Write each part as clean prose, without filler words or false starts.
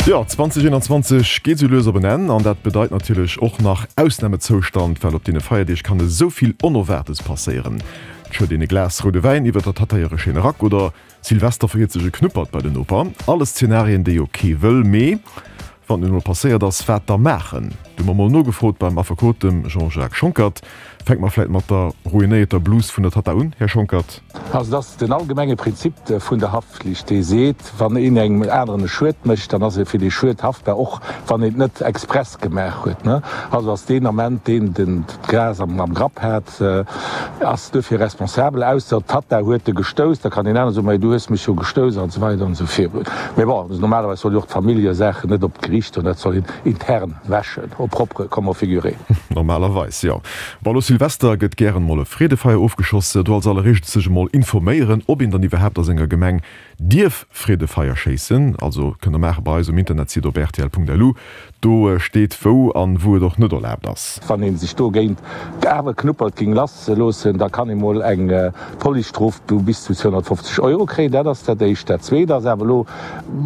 Jo, 2021 geet sou lues op en Enn an dat bedeit natierlech och nach Ausnamezoustand, well op deene Feierdeeg kann esou vill Onerwaartes passéieren. Et schëtt een e Glas roude Wäin iwwer der Tatta hire schéine Rack oder Silvester verhiert sech e Knuppert bei den Noper. Alles Zenarien, déi jo kee wëll, mee wann et nun emol passéiert ass, wat da maachen? Du hu mer mol nogefrot beim Affekot, dem Jean-Jacques Schonckert. Fänke mer vläit mat der ruinéierter Blus vun der Tatta un, Här Schonckert. Also et ass den allgemenge Prinzip vun der Haftpflicht, dee seet, wann een engem aneren e Schued mécht, dann ass e fir dee Schued haftbar, och wann een et net express gemaach huet. Also ass deen Ament deen den d'Gras am Grapp hat, ass duerfir responsabel, ausser d'Tatta huet e gestouss, da kann deen anere soen, ma du hues mech jo gestouss an esou weider an esou virun. Mee bon, normalerweis soll jo och d'Familljesaachen net op d'Geriicht goen, dat soll een intern wäschen, au propre comme au figuré. Normalerweis, jo. Bon, elo Silvester gëtt gären emol e Freedefeier ofgeschoss. Do als alleréischt sech emol informéieren, ob een dann iwwerhaapt a senger Gemeng dierf Freedefeier schéissen. Also kënnt der maache bei eis um Internetsite op rtl.lu. Do steet wou an wou et och net erlaabt ass. Wann ee sech dogéint awer Knuppert géing lass loossen, da kann ee mol eng Policestrof vu bis zu 250 Euro kréien. Dat ass dat éischt. Dat zweet ass awer elo,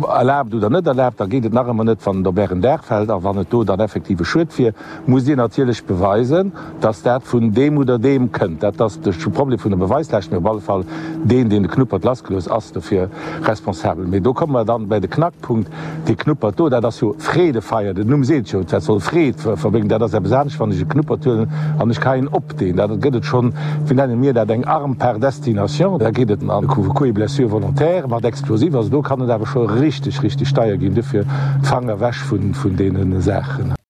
erlaabt oder net erlaabt, da geet et nach ëmmer net, wann et op Ären Daach fält a wann et do dann effektiv e Schued wier. Musst Dir natierlech beweisen, dass dat vun deem oder deem kënnt. Dat ass de Problem vun der Beweislaascht. Mee op alle Fall, deen, deen de Knuppert lassgelooss, ass dofir responsabel. Mee do komme mer dann bei de Knackpunkt, Dee Knuppert do, dat ass jo Freedefeier, den Numm seet jo, dat soll Freed verbréngen. Dat ass eppes anescht, wann ech e Knuppert huelen an ech geheien op deen. Da gëtt et schonn, wéi nenne mir dat, eng Arme par destination. Da geet et an Coups et blessures volontaires mat Explosif. Also do kann et awer scho richteg, richteg deier ginn. Dofir Fanger ewech vun deene Saachen.